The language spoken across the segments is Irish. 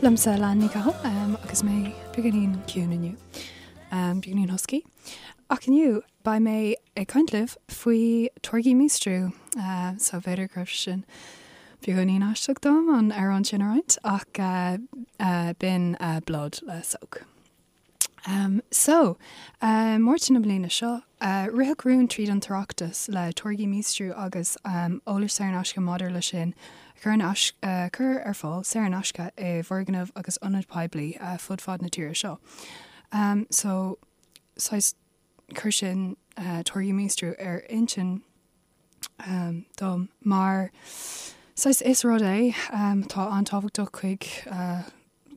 Liomsa Leanne Ní Chathail agus mé beagáinín ciúin inniu, beagáinín husky. Ach inniu beidh mé ag caint libh faoi táirgí míostrú. So b'fhéidir go raibh sin beagáinín aisteach dom an amhrán sin a roinnt ach b'in Blood le Soak. So, Márta na bliana seo, ritheadh rún tríd an tOireachtas le táirgí míostrú agus eolas saor in aisce maidir leis sin a chur in a chur ar fáil saor in aisce i bhfoirgnimh agus ionaid poiblí fud fad na tíre seo. So, saghas chuir sin táirgí míostrú ar intinn dom mar saghas is rud é atá an-tábhachtach chuig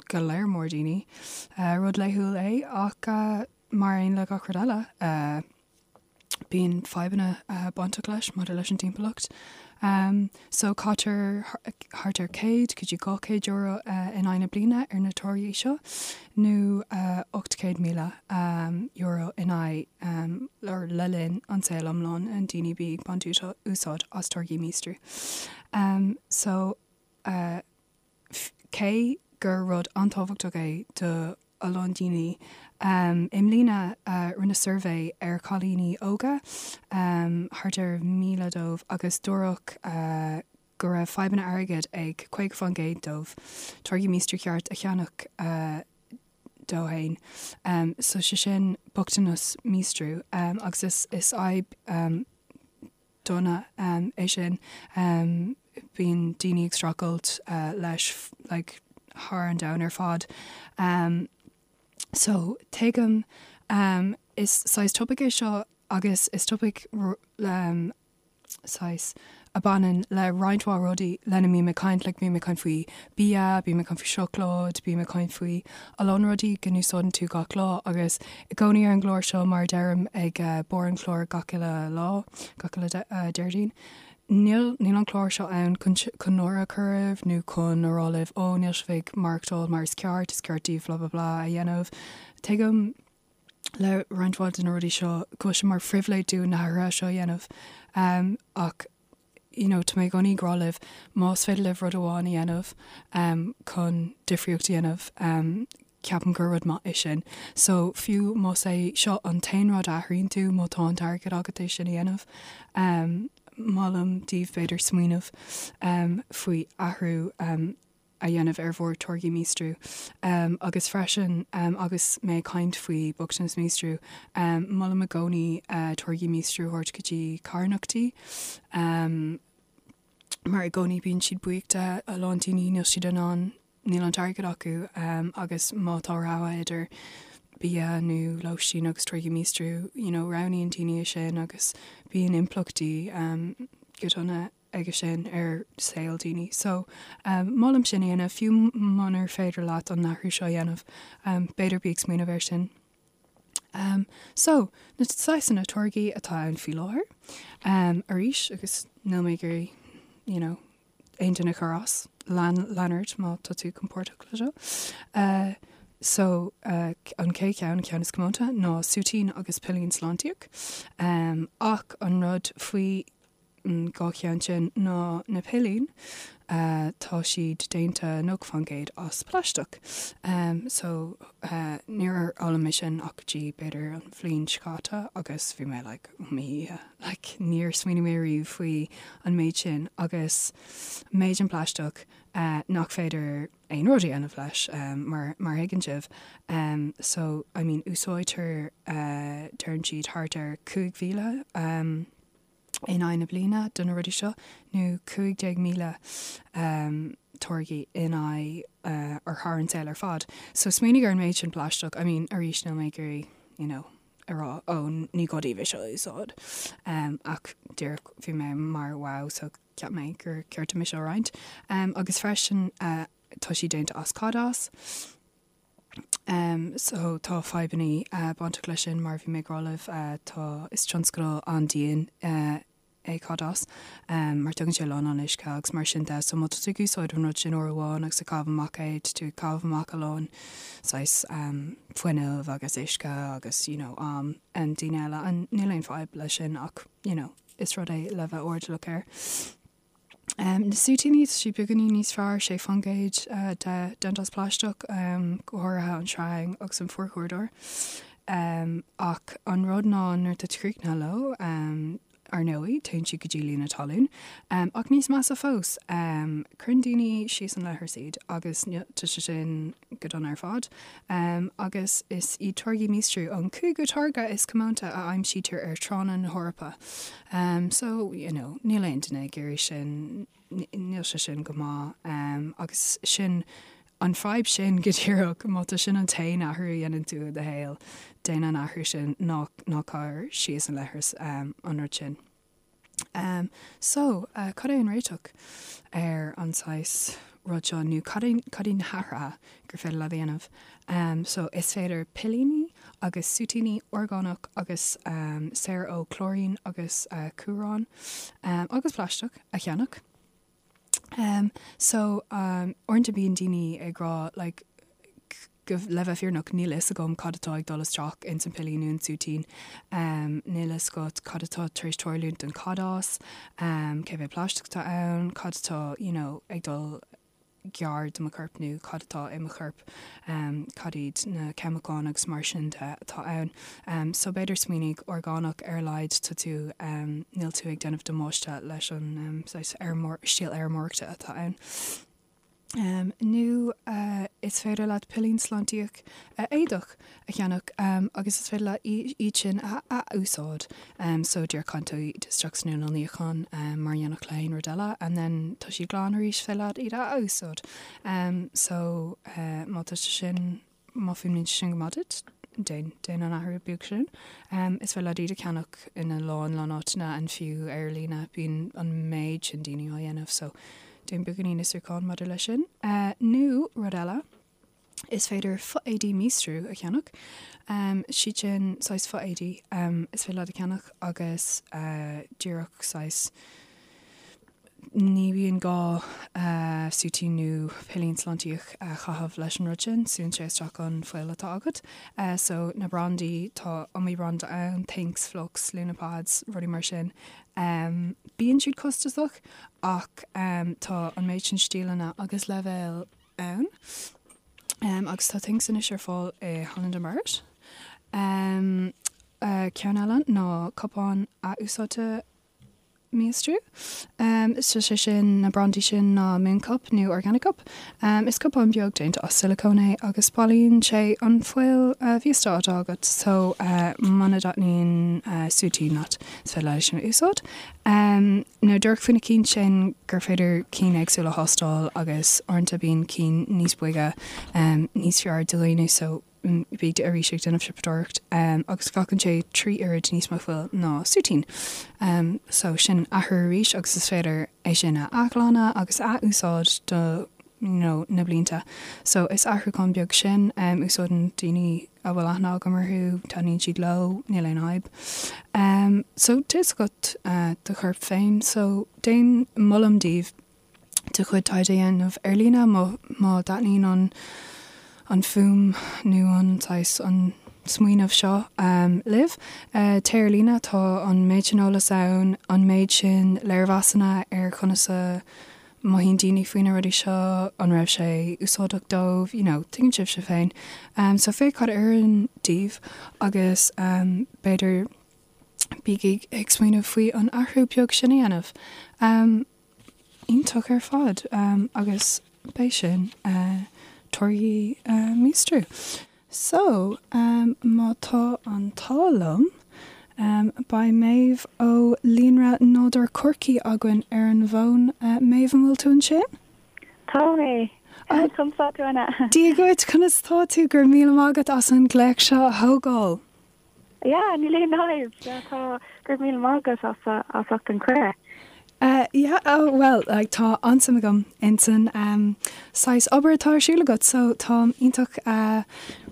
go leor mór daoine. Rud laethúil é ach mar aon le gach rud eile, bíonn fadhbanna bainteach leis maidir leis an timpeallacht. So caitear thart ar 100 go dtí €200 in aghaidh na bliana ar na táirgí seo, nó €800,000 in aghaidh or le linn an saol iomlán an daoine a bhí ag baint úsáid as táirgí míostrú. So. Cé gur rud an-tábhachtach é do a lán daoine, i mbliana rinneadh suirbhé ar chailíní óga, thart ar 1,000 dóibh, agus dúradh go raibh fadhbanna airgid ag 50% dóibh táirgí míostrú ceart a cheannach dó fhéin. So sé sin bochtanas míostrú agus is fadhb dona é sin. Bíonn daoine ag streachailt leis like thar an domhan ar fad. So tuigim is saghas topaic é seo agus is topaic saghas a bhaineann le roinnt mhaith rudaí lena mbím ag caint, like bím ag caint faoi bia, bím ag caint faoi seacláid, bím ag caint faoi a lán rudaí go n-úsáideann tú gach lá agus i gcónaí ar an gclár seo mar a deirim ag barr an chláir gach uile lá, gach uile Déardaoin, níl níl an clár seo ann chun chun náire a chur oraibh nó chun a rá libh ó níl sibh ag maireachtáil mar is ceart, is ceart daoibh blah blah blah a dhéanamh. Tuigim le roinnt mhaith de na rudaí seo go bhfuil sé mar phribhléid dúinn na hathruithe seo a dhéanamh ach you know tá mé i gcónaí ag rá libh más féidir libh rud amháin a dhéanamh chun difríocht a dhéanamh ceapaim gur rud maith é sin. So fiú más é seo an t-aon rud a athraíonn tú má tá an t-airgead agat é sin a dhéanamh molaim daoibh b'fhéidir smaoineamh faoi athrú a dhéanamh ar bhur táirgí míostrú. Agus freisin, agus mé ag caint faoi bochtanas míostrú, molaim i gcónaí táirgí míostrú a thabhairt go dtí carthanachtaí, mar i gcónaí bíonn siad buíoch de, a lán daoine níl siad in ann, níl an t-airgead acu agus má tá rogha idir bia nó lóistín agus táirgí míostrú, you know, roghnaíonn daoine é sin agus bíonn impleachtaí go dona aige sin ar saol daoine. So, molaim sin a dhéanamh, fiú munar féidir leat an athrú seo a dhéanamh, b'fhéidir bí ag smaoineamh air sin. So, na saghsanna táirgí atá ann faoi láthair, arís, agus níl mé ag iarraidh, you know, aon duine a chur as, lean, lean ort má tá tú compordach le seo. So, an chéad cheann, an ceann is comónta, ná súitín agus pillín sláintíoch. Ach an rud faoi an dá cheann sin ná na pillín, tá siad déanta 90% as plaisteach. So níor fhoghlaim mé sin ach go dtí b'fhéidir an bhliain seo caite agus bhí mé like oh mo Dhia, like níor smaoinigh mé riamh faoi an méid sin agus méid an plaisteach nach féidir aon rud a dhéanamh leis mar mar a thuigeann sibh. So I mean úsáidtear deireann siad thart ar 5,000 in aghaidh na bliana do na rudaí seo, nó 15,000 táirgí in aghaidh or thar an saol ar fad. So smaoinigh ar an méid sin plaisteach, I mean arís níl mé ag iarraidh you know a rá oh ní gá daoibh é seo a úsáid ach díreach bhí mé mar wow so cheap mé gur ceart dom é seo a roinnt. Agus freisin tá siad déanta as cadás. So tá fadhbannaí bainteach leis sin mar bhí mé ag rá libh tá, is tionscadal an-dian é cadás mar tógann sé a lán lán uisce agus mar sin de. So má tá tú ag úsáid an rud sin uair amháin agus ag caitheamh amach é, tá tú ag caitheamh amach a lán saghas fuinneamh agus uisce agus you know am daoine eile and níl aon fadhb leis sin ach you know is rud é le bheith airdeallach air. Na súitíní, tá siad beagáinín níos fearr, 6% de déanta as plaisteach, go háirithe an sreang agus an forchúrdóir. Ach an rud ná nuair atá tú críochnaithe leo, ar ndóigh, téann siad go dtí líonadh talún. Ach níos measa fós, cuireann daoine síos an leithreas iad agus tá sé sin go dona ar fad. Agus is iad táirgí míostrú an cúigiú táirge is comónta a aimsítear ar thránna na hEorpa. So, you know, níl aon duine ag iarraidh sin, níl sé sin go maith. Agus sin an fadhb sin go díreach, má tá sin an t-aon athrú a dhéanann tú i do shaol, déan an athrú sin, ná, ná cuir síos an leithreas an rud sin. So, cad é an réiteach ar an saghas rud seo nó cad é, cad iad na hathruithe gur féidir leat a dhéanamh? So, is féidir pillíní agus súitíní orgánach agus saor ó clóirín agus cumhrán agus plaisteach a cheannach. So, uaireanta bíonn daoine ag rá like go, le bheith fírinneach, níl a fhios agam cad atá ag dul isteach ins an pillín nó an súitín. Níl a fhios agat cad atá tar éis tarlúint don chadás, cé mhéad plaisteach atá ann, cad atá, you know, ag dul gar do mo chorp nó cad atá i mo chorp, cad iad na ceimiceáin agus mar sin de atá ann. So b'fhéidir smaoinigh orgánach ar a laghad tá tú, níl tú ag déanamh damáiste leis an saghas stíl fheirmeoireachta atá ann. Nó is féidir leat pillín sláintíoch éadach a cheannach agus is féidir leat iad sin a ath-úsáid. So díreach caitheann tú iad isteach san inneall níocháin mar a dhéanfadh le haon rud eile and then tá siad glan arís, féidir leat iad a ath-úsáid. So má tá sé sin, má fuaimníonn sé sin go maith duit, déan, déan an athrú beag sin. Is féidir leat iad a cheannach ina lán, lán áiteanna and fiú ar líne bíonn an méid sin daoine á dhéanamh so déan beagáinín fhiosrúcháin maidir leis sin. Nó rud eile. Is féidir fo-éadaí míostrú a cheannach. Siad sin saghas fo-éadaí is féidir leat a cheannach agus díreach saghas ní bhíonn gá súitín nó pillín sláintíoch a chaitheamh leis an rud sin, súnn sé isteach an fuil atá agat. So na brandaí, tá iomaí branda ann, Thinx, Flux, Lunapads, rudaí mar sin. Bíonn siad costasach ach tá an méid sin stíleanna agus leibhéil ann agus tá Thinx anois ar fáil i Holland and Barrett. Ceann eile ná cupán athúsáidte míostrú. So sé sin na brandaí sin ná Mooncup nó Organic Cup. Is cupán beag déanta as silicone é agus bailíonn sé an fuil mhíosta atá agat so muna dtaitníonn súitín leat is féidir leat é sin a úsáid. Nó díreach faoi na cinn sin gur féidir cinn éagsúla a thástáil agus uaireanta bíonn cinn níos boige níos fearr do dhaoine so bí arís ag déanamh siopadóireacht agus glacann sé 3 oiread níos mó fuil ná súitín. So sin athrú arís agus is féidir é sin a athghlanadh agus a athúsáid do you know na blianta. So is athrúchán beag sin, úsáideann daoine a bhfuil aithne agam orthu, taitníonn siad leo, níl aon fhadhb. So tá fhios agat do chorp féin, so déan, molaim daoibh do chuid taighde a dhéanamh ar líne má má dtaitníonn an an fuaim nó an saghas an smaoineamh seo libh. Téigh ar líne, tá an méid sin eolas ann, an méid sin léirmheasanna ar conas a mothaíonn daoine faoi na rudaí seo, an raibh sé úsáideach dóibh, you know, tuigeann sibhse féin. So féach cad a oireann daoibh agus b'fhéidir bígí ag smaoineamh faoi an athrú beag sin a dhéanamh. Iontach ar fad agus b'é sin táirgí míostrú. So, má tá an t-ádh liom, beidh Méabh ó Líonra Nádúr Chorcaí againn ar an bhfón. Méabh, an bhfuil tú ansin? Tá mé. Conas tá tú, Anna? Dia dhuit, conas tá tú? Go raibh míle maith agat as an glaoch seo a thógáil. Yeah, níl aon fhadhb. Yeah, tá, go raibh míle maith agat as, as ucht an cuireadh. Uh, yeah, oh, well, like, tá an-suim agam insan um, saghas obair atá ar siúl agat, so táim iontach uh,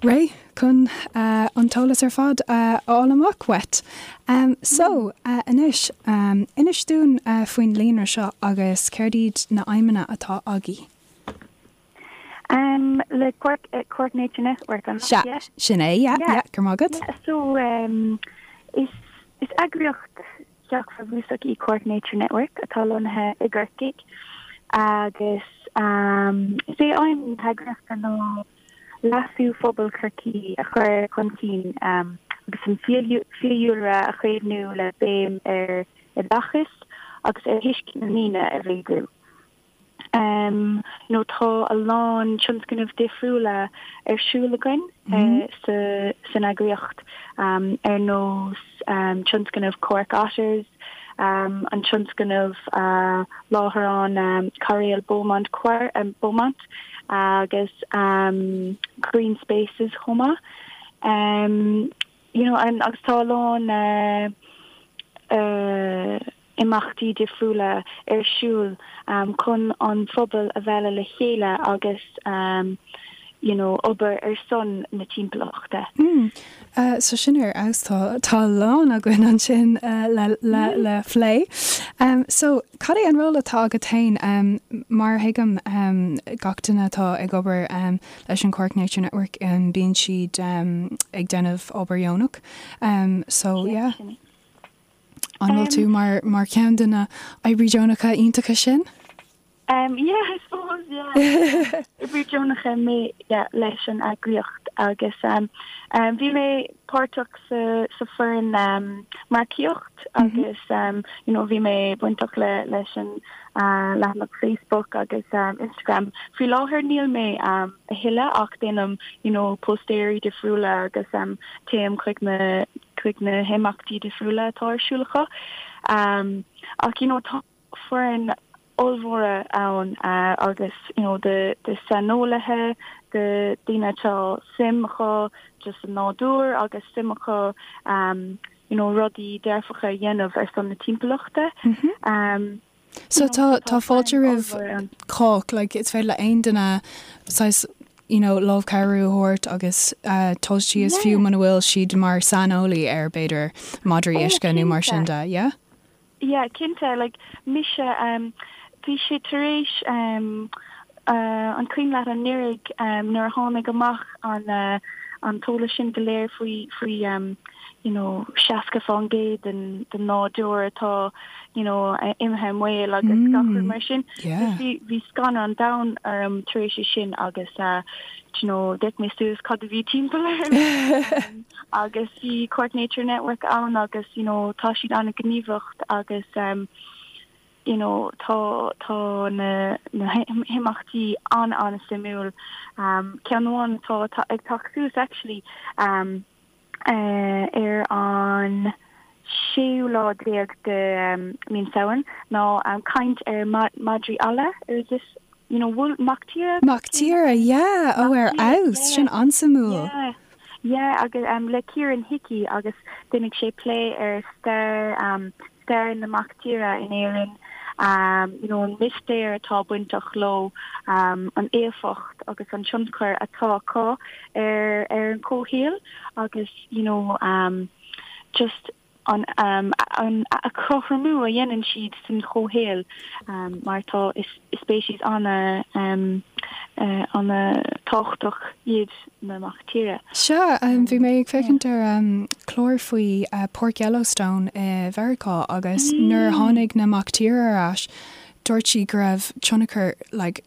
réidh chun uh, an t-eolas ar fad uh, a fháil amach uait. Um, so, uh, anois, um, inis dúinn uh, faoin líonra seo agus céard iad na aidhmeanna atá agaibh. Um, le Cork, uh, Cork Nature Network, an Sea, yeah? sin é, yeah, yeah, go raibh maith agat. Yeah, so, um, is, is eagraíocht. Theach Bhrabúsach í Cork Nature Network atá lonnaithe i gCorcaigh agus is é aidhm na heagraíochta ná leasú phobal Chorcaí a chur chun cinn agus an fiadhúlra a chaomhnú le béim ar oideachas agus ar thuiscint na ndaoine a mhéadú. You know tá a lán tionscnamh difriúla ar siúl againn sa san eagraíocht ar nós tionscnamh Cork Otters, an tionscnamh láithreán Cairéal Beaumont Beaumont agus Green Spaces chomh maith. You know agus tá a lán imeachtaí difriúla ar siúl chun an phobal a mhealladh le chéile agus you know obair ar son na timpeallachta. Mm. So sin ar fheabhas tá tá a lán againn ansin le le le phlé. So cad é an ról atá agat féin? Mar a thuigim gach duine atá ag obair leis an Cork Nature Network bíonn siad ag déanamh obair dheonach. So yeah. An bhfuil tú mar mar cheann de na oibrí deonacha iontacha sin? Um, yeah, I suppose, yeah. Oibrí deonacha mé yeah, leis an eagraíocht agus um, um, bhí mé páirteach sa, sa foireann um, marcaíocht mm -hmm. agus um, you know, bhí mé bainteach le, leis an uh, leathanach Facebook agus um, Instagram. Faoi láthair níl mé um, a thuilleadh ach déanaim you know, póstaeirí difriúla agus um, téim chuig na chuig na himeachtaí difriúla atá ar siúl acu. Ach you know tá foireann ollmhóra ann agus you know de de saineolaithe, de daoine atá suim acu just sa nádúr agus suim acu you know rudaí dearfacha a dhéanamh ar son na timpeallachta. So tá tá fáilte roimh chách, like is féidir le aon duine saghas you know lámh cabhrú a thabhairt agus dul síos fiú muna bhfuil siad mar saineolaí ar b'fhéidir madraí uisce nó mar sin de, yeah? Yeah, cinnte, like mise um bhí sé tar éis um uh an cuimhin leat anuraidh um nuair a tháinig amach an uh an t-eolas sin go léir faoi faoi um you know 60% den den nádúr atá you know, imithe i mbaol agus gach rud mar sin. Bhí bhí scanradh an domhain orm tar éis é sin agus uh, you know, d'fhéach mé suas cad a bhí timpeall orm agus bhí Cork Nature Network ann agus you know, tá siad an-ghníomhach agus um, you know, tá tá na na himeachtaí an-an-suimiúil. Um, ceann amháin atá ag teacht suas actually um, ar an séú lá déag de mí an Samhain ná caint ar madraí alla, is this you know wolf mac tíre? Mac tíre, yeah, ó ar fheabhas, sin an-suimiúil. Yeah, yeah agus le Kieran Hickey agus déanfaidh sé plé ar stair stair na mac tíre in Éirinn, you know an mistéir atá bainteach leo, an éifeacht agus an tionchar atá acu ar ar an chomhshaol agus you know just an an cothromú a dhéanann siad san chomhshaol mar tá is speicis ana ana tábhachtach iad na mac tíre. Sea, bhí mé ag féachaint ar chlár faoi Páirc Yellowstone i Mheiriceá agus nuair a tháinig na mac tíre ar ais, dúirt siad go raibh tionchar like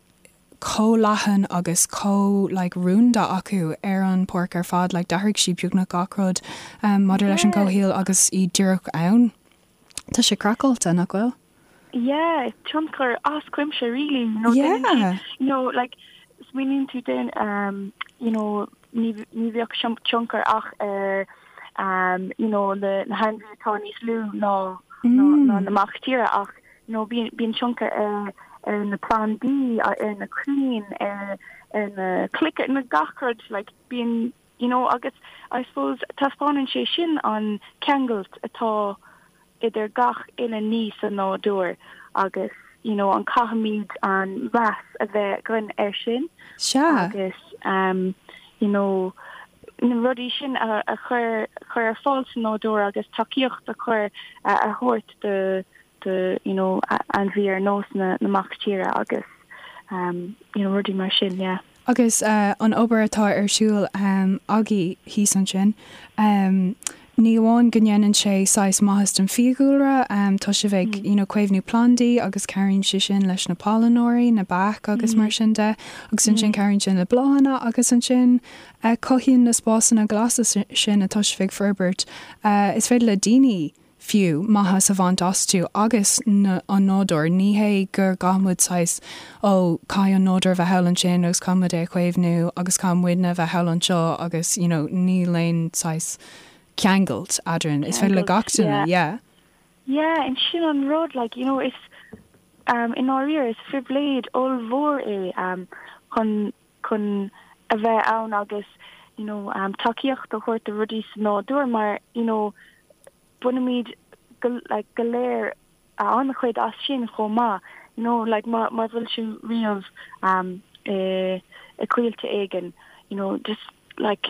chomh leathan agus chomh like rúnda acu ar an pháirc ar fad, like d'athraigh siad beagnach gach rud maidir leis an gcomhshaol agus iad díreach ann. Tá sé craiceáilte, nach bhfuil? Yeah, tionchar as cuimse really, you know, déanann siad, Yeah. you know, like smaoiníonn tú den, um, you know, ní ní bheadh tionchar ach ar, um, you know, na na hainmhithe atá níos lú ná ná ná na mac tíre ach, you know, bíonn bíonn tionchar ar ar na plandaí, ar na crainn, ar ar na clocha, na gach rud, like bíonn, you know, agus I suppose taispeánann sé sin an ceangailt atá idir gach uile ní sa nádúr agus you know an caithfimid an meas a bheith againn air sin Sea. agus um you know na rudaí sin a a chur chur ar fáil sa nádúr agus tacaíocht a chur a thabhairt do do you know ainmhí ar nós na na mac tíre agus um you know rudaí mar sin yeah. Agus an obair atá ar siúl agaibh thíos ansin. Ní amháin go ndéanann sé saghas maitheas don fiadhúlra, tá sibh ag, you know, caomhnú plandaí agus cabhraíonn sé sin leis na pailneoirí, na beacha agus mar sin de, agus ansin cabhraíonn sin le bláthanna agus ansin cothaíonn na spásanna glasa sin atá sibh ag forbairt, is féidir le daoine fiú, maitheas a bhaint astu agus an nádúr. Ní hé go gcaithfidh muid saghas, ó, caithfidh an nádúr a bheith thall ansin agus caithfidh muid é a chaomhnú agus caithfidh muidne a bheith thall anseo agus, you know, níl aon saghas ceangailt eadrainn. Is féidir le gach duine, yeah. Yeah, and sin an rud, like, you know, is, um, i ndáiríre, is phribhléid ollmhór é, um, chun, chun a bheith ann agus, you know, um, tacaíocht a thabhairt do rudaí sa nádúr mar, you know, bainimid go, like, go léir an-chuid as sin chomh maith, you know, like, má, má bhfuil tú riamh, um, i, i coillte éigin, you know, just, like,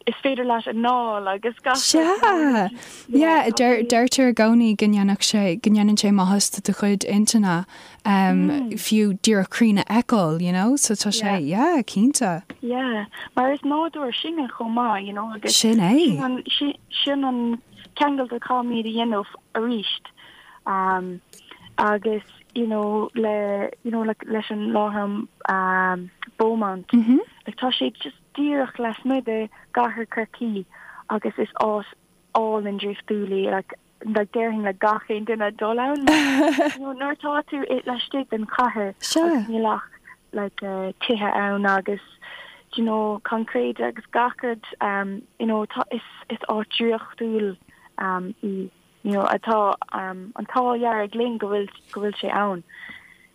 is féidir leat anáil agus gach Sea! Yeah, deirtear i gcónaí go ndéanfadh sé, go ndéanann sé maitheas do do chuid intinne, fiú díreach crainn a fheiceáil, you know, so tá sé, yeah, cinnte. Yeah, mar is nádúr sinne chomh maith, you know, agus Sin é. sin an, sin an ceangal a chaithfimid a dhéanamh arís. Um, agus, you know, le, you know, le, leis an láithreán um, Beaumont, mm -hmm. like, tá sé just díreach lasmuigh de gcathair Chorcaí agus is áit álainn draíochtúil í, like, like déarfainn le gach aon duine dul ann mar, you know, nuair atá tú i, laistigh den chathair agus níl ach like eh, tithe ann agus do you know, concrete agus gach rud um, you know, tá, is, is áit draíochtúil um, í. you know, atá an t-ádh dearg linn go bhfuil, go bhfuil sé ann.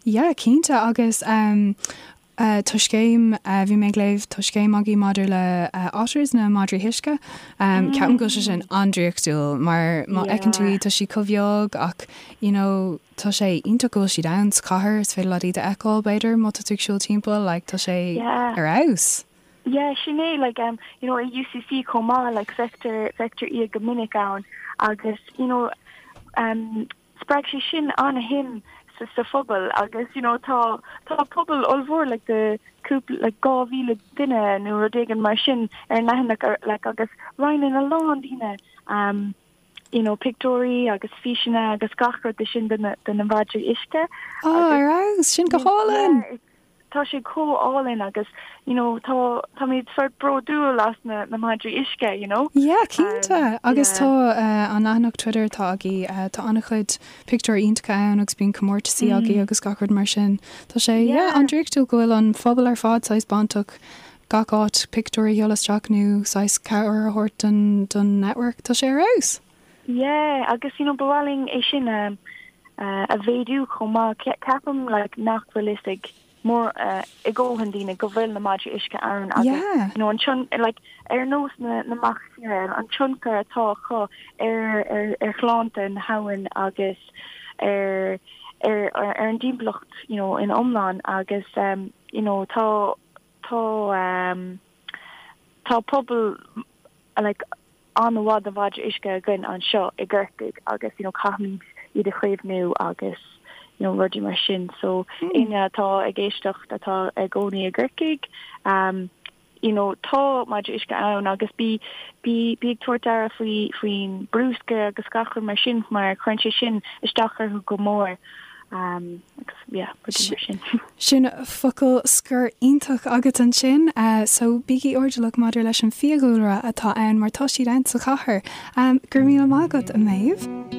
Yeah, cinnte, agus um tá scéim, bhí mé ag léamh, tá scéim agaibh maidir le otters, na madraí uisce. Um ceapaim go bhfuil sé sin an-draíochtúil mar má fheiceann tú iad tá siad chomh beag ach you know tá sé iontach go bhfuil siad ann sa chathair, is féidir leat iad a fheiceáil b'fhéidir má tá tú ag siúl timpeall, like tá sé ar fheabhas. Yeah, sin é, like, um, you know, i UCC chomh maith, like, feictear, feictear iad go minic ann agus, you know, um, spreag sé sin an-shuim sa, sa phobal agus, you know, tá, tá pobal ollmhór, like, de cúpla, like, 2,000 duine nó rud éigin mar sin ar an leathanach, ar, like, agus roinneann a lán daoine, um, you know, pictiúirí agus físeanna agus gach rud de sin de na, de na madraí uisce. Oh, ar fheabhas, sin go hálainn! Yeah, Tá sé chomh álainn agus you know tá táimid sort bródúil as na na madraí uisce you know. Yeah cinnte agus tá an leathanach Twitter atá agaibh tá an-chuid pictiúir iontacha ann agus bíonn comórtasaí agaibh agus gach rud mar sin. Tá sé yeah an-draíochtúil go bhfuil an phobal ar fad saghas bainteach gach áit pictiúir a sheoladh isteach nó saghas cabhair a thabhairt don don network. Tá sé ar fheabhas! Yeah agus you know ba mhaith linn é sin a a mhéadú chomh maith. Ceapaim like nach bhfuil fhios ag mór ag dóthain daoine go bhfuil na madraí uisce ann agus Yeah. you know an tion like ar nós na na mbeach tíre an tionchar atá acu ar ar ar shláinte na habhann agus ar ar ar an dtimpeallacht you know in iomlán agus um you know tá tá um tá pobal like an-mhaith de mhadraí uisce againn anseo i gCorcaigh agus you know caithfimid iad a chaomhnú agus you know rudaí mar sin so éinne atá ag éisteacht atá i gcónaí i gCorcaigh um you know tá madraí uisce ann agus bí bí bí ag tabhairt aire faoi faoin bruscar agus gach rud mar sin mar cuireann sé sin isteach orthu go mór um agus yeah rudaí mar sin. Sin focal scoir iontach agat ansin. So bígí airdeallach maidir leis an fiadhúlra atá ann mar tá siad ann sa chathair. Go raibh míle maith agat, a Méabh.